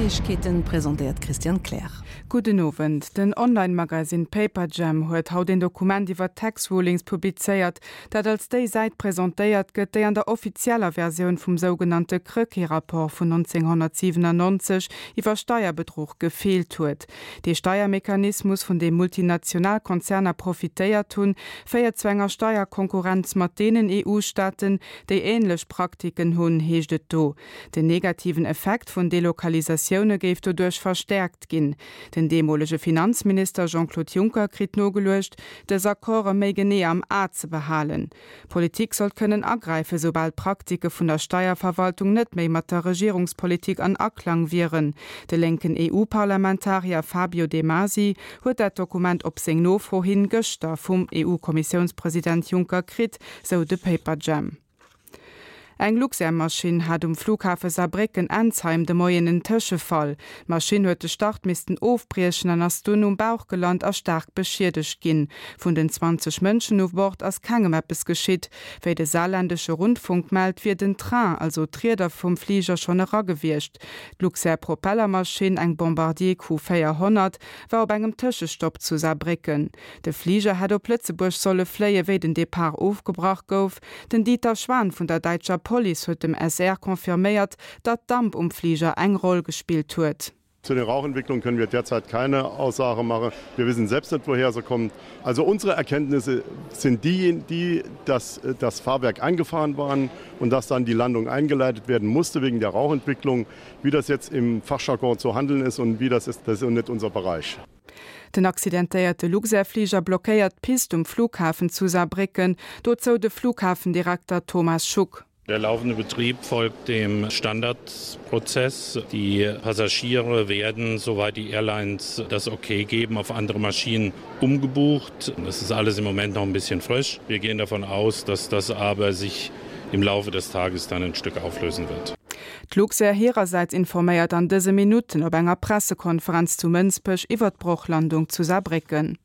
Neiegkeeten, presentéiert d'Christiane Kleer. Gudden Owend. Den Online-Magasinn Paperjam huet haut een Dokument iwwer Tax Rulings publizéiert, dat als déi Säit presentéiert gëtt, déi an der offizieller Versioun vum sougenannte Krecké-Rapport vun 1997 iwwer Steierbedruch gefeelt huet. Dee Steiermechanismus, vun deem multinational Konzerner profitéiert hunn, féiert zu enger Steierkonkurrenz mat deenen EU-Staaten, déi änlech Praktiken hunn, heescht et do. Den negativen Effekt vun Delokalisatioune géif doduerch verstäerkt ginn. Den deemolege Finanzminister Jean-Claude Juncker kritt nogeluecht, dës Accorde méi genee am A ze behalen. D'Politik sollt kënnen agräifen, soubal d'Praktike vun der Steierverwaltung net méi mat der Regierungspolitik an Aklang wieren. De lénken EU-Parlamentarier Fabio De Masi huet dat Dokument op seng Nofro hin gëschter vum EU-Kommissiounspresident Juncker kritt, sou de Paperjam. Eng Luxair-Maschinn hat um Flughafe Saarbrécken-Ensheim de Moien en Tëschefall. D'Maschinn huet de Start missten ofbriechen an ass dunn um Bauch gelant a staark beschiedegt ginn. Vun den 20 Mënschen u Bord ass kengem eppes geschitt. Wéi de saarländesche Rundfunk mellt, wier den Train, also d'Rieder vum Fliger, schonn era gewiescht. D'Luxair-Propellermaschinn, eng Bombardier Q400, war op engem Tëschestopp zu Saarbrécken. De Fliger hätt op Lëtzebuerg solle fléien, wéi den Depart ofgebrach gouf. Den Dieter Schwan vun der däitscher Police huet dem SR confirméiert, datt Damp um Fliger eng Roll gespillt huet. Zu den Rauchentwicklungen können wir derzeit keine Aussage machen. Wir wissen selbst nicht, woher sie kommt. Also unsere Erkenntnisse sind die, die dass das Fahrwerk angefahren waren und dass dann die Landung eingeleitet werden musste wegen der Rauchentwicklung. Wie das jetzt im Fachjargon zu handeln ist und wie das ist, das ist nicht unser Bereich. Den accidentéierte Luxair-Fliger blockéiert d'Pist um Flughafen zu Saarbrécken, dozou de Flughafendirekter Thomas Schuck. Der laufende Betrieb folgt dem Standardprozess. Die Passagiere werden, soweit die Airlines das okay geben, auf andere Maschinen umgebucht. Das ist alles im Moment noch ein bisschen frisch. Wir gehen davon aus, dass das aber sich im Laufe des Tages dann ein Stück auflösen wird. D'Luxair hirersäits informéiert an dëse Minutten op enger Pressekonferenz zu Mënsbech iwwer d'Brochlandung zu Saarbrécken.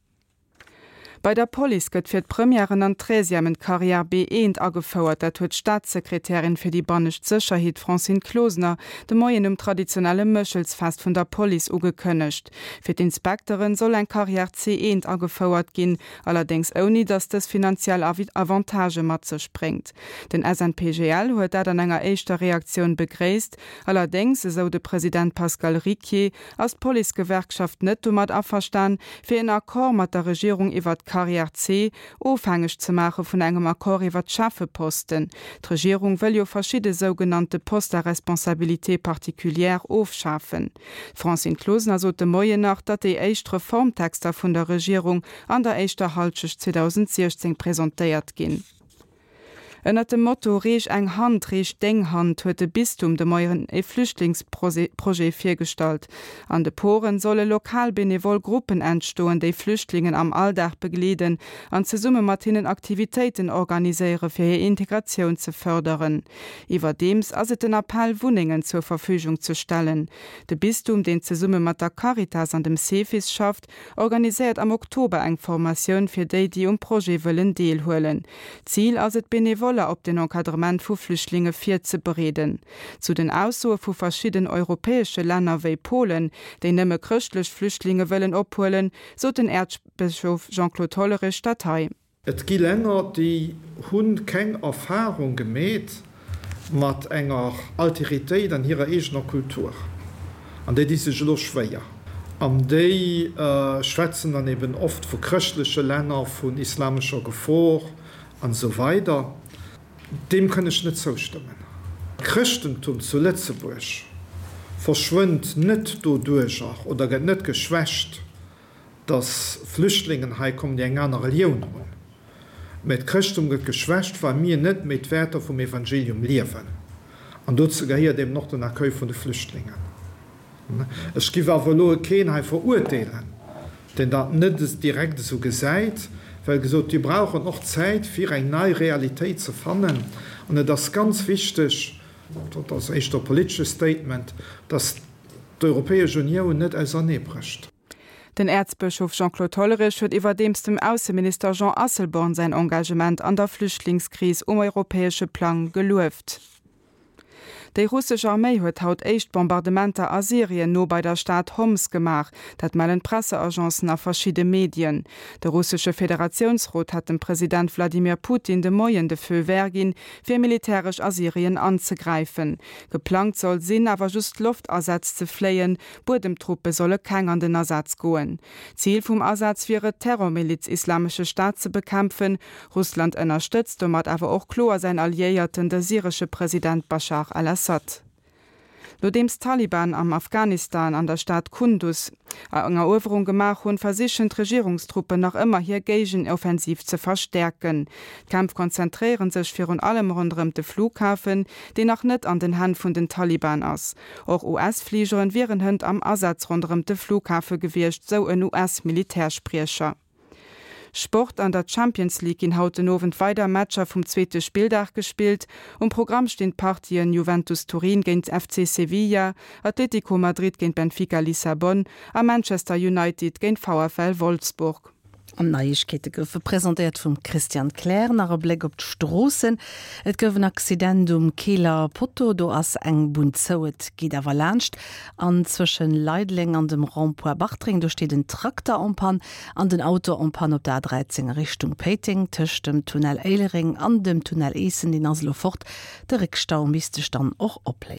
Bei der Police gëtt fir d'Premièren an d'Treizièmen d'Carrière B1 agefouert. Dat huet d'Staatssekretärin fir déi bannescht Sécherheet Francine Closener de Moien um traditionelle Méchelsfest vun der Police ugekënnegt. Fir d'Inspekteren soll eng Carrière C1 agefouert ginn, allerdéngs ouni datt dës finanziell Avantagë mat sech bréngt. Den SNPGL huet dat an enger éischter Reaktioun begréisst. Allerdéngs, esou de President Pascal Ricquier, ass d'Policegewerkschaft net domat averstan, fir en Accord mat der Regierung iwwert d'Carrière C ofhängeg ze maache vun engem Accord iwwert d'Cheffeposten. D'Regierung wëll jo verschidde sougenannte Postes à responsabilité particulière ofschafen. D'Francine Closener sot de Moien nach, datt déi éischt Reformtexter vun der Regierung an der éischter Halschecht 2016 presentéiert ginn. Ënnert dem Motto Reech eng Hand, reech deng Hand huet de Bistum de Moien e Flüchtlingsprojet virgestallt. An de Poren solle lokal benevol Gruppen entstoen, déi Flüchtlingen am Alldag begleeden an zesumme mat hinnen Aktivitéiten organiséiere fir hir Integratioun ze fërderen. Iwwerdeems ass et den Appell Wunnengen zur Verfügung ze stellen. De Bistum, deen zesumme mat der Caritas an dem Cefis schafft, organiséiert am Oktober eng Formatioun fir déi, déi um Projet wëllen deelhuelen. Zil ass et, Benevoller op den Encadrement vu Flüchtlinge virzebereeden. Zu den Aussoe vu verschidden europäesche Länner wéi Polen, déi nëmme chrëschtlech Flüchtlinge wëllen ophuelen, sot den Äerzbëschof Jean-Claude Hollerich dat hei. Et gi Länner, déi hu keng Erfahrung gemeet mat enger Alteritéit an hirer eegener Kultur an déi di sech elo schwéier. An déi schwätzen dann eben oft vu chrëschtleche Länner, vun islamescher Gefor an esou weider. Deem kënn ech net zoustëmmen. D'Chrëschtentum zu Lëtzebuerg verschwënnt net doduerjer oder gëtt net geschwächt, dass Flüchtlingen hei kommen, déi eng aner Relioun hunn, mä d'Chrëschtum gëtt geschwächt, well mir net méi d'Wäerter vum Evangelium liewen. An dozou gehéiert eben och den Accueil vun de Flüchtlingen. Ech giff awer elo keen hei verurteelen, deen dat net direkt esou gesäit, well gesot, mir brauchen och Zäit, fir eng nei Realitéit ze fannen. An et ass ganz wichteg, dat ass éischter e politesche Statement, dass d'Europäesch Unioun net auserneebrécht. Den Äerzbëschof Jean-Claude Hollerich huet iwwerdeems dem Ausseminister Jean Asselborn säin Engagement an der Flüchtlingskris um europäesche Plang gelueft. Déi russesch Arméi huet haut éischt Bombardementer a Syrien no bei der Stad Homs gemaach. Dat mellen d'Presseagencen a verschidde Medien. De russesche Federatiounsrot hat dem President Wladimir Putin de Moien de Feu vert ginn, fir militäresch a Syrien anzegräifen. Geplangt soll sinn, awer just Loftasätz ze fléien, Buedemtruppe solle keng an den Asaz goen. Zil vum Asaz wier et, d'Terrormiliz Islamesche Staat ze bekämpfen. Russland ënnerstëtzt domat awer och kloer säin Alliéierten, de syresche President Baschar al-Assad. Nodeems d'Taliban am Afghanistan an der Stad Kundus eng Eruewerung gemaach hunn, versichen d'Regierungstruppen nach ëmmer hir Géigenoffensiv ze verstäerken. D'Kämpf konzentréiere sech virun allem ronderëm de Flughafen, deen nach net an den Hänn vun den Taliban ass. Och US-Fligeren wieren hënt am Asaz ronderëm de Flughafe gewiescht, sou en US-Militärspriecher. Sport, An der Champions League ginn haut den Owend weider Matcher vum zweete Spilldag gespillt. Um Programm stinn d'Partien Juventus Turin géint FC Sevilla, Atlético Madrid géint Benfica Lissabon a Manchester United géint VfL Wolfsburg. An d'Neiegkeete goufe presentéiert vum Christian Kleer. Nach e Bléck op d'Stroossen. Et gouf en Accident um Keeler Potto, do ass eng Bunn zou, et geet awer laanscht. An zwëschen Leideleng an dem Rond-point Bartreng, do steet en Trakter en panne. An den Auto en panne op der A13 a Richtung Péiteng, tëscht dem Tunnel Éilereng an dem Tunnel Eessen, deen ass elo fort. De Réckstau misst sech dann och opléisen.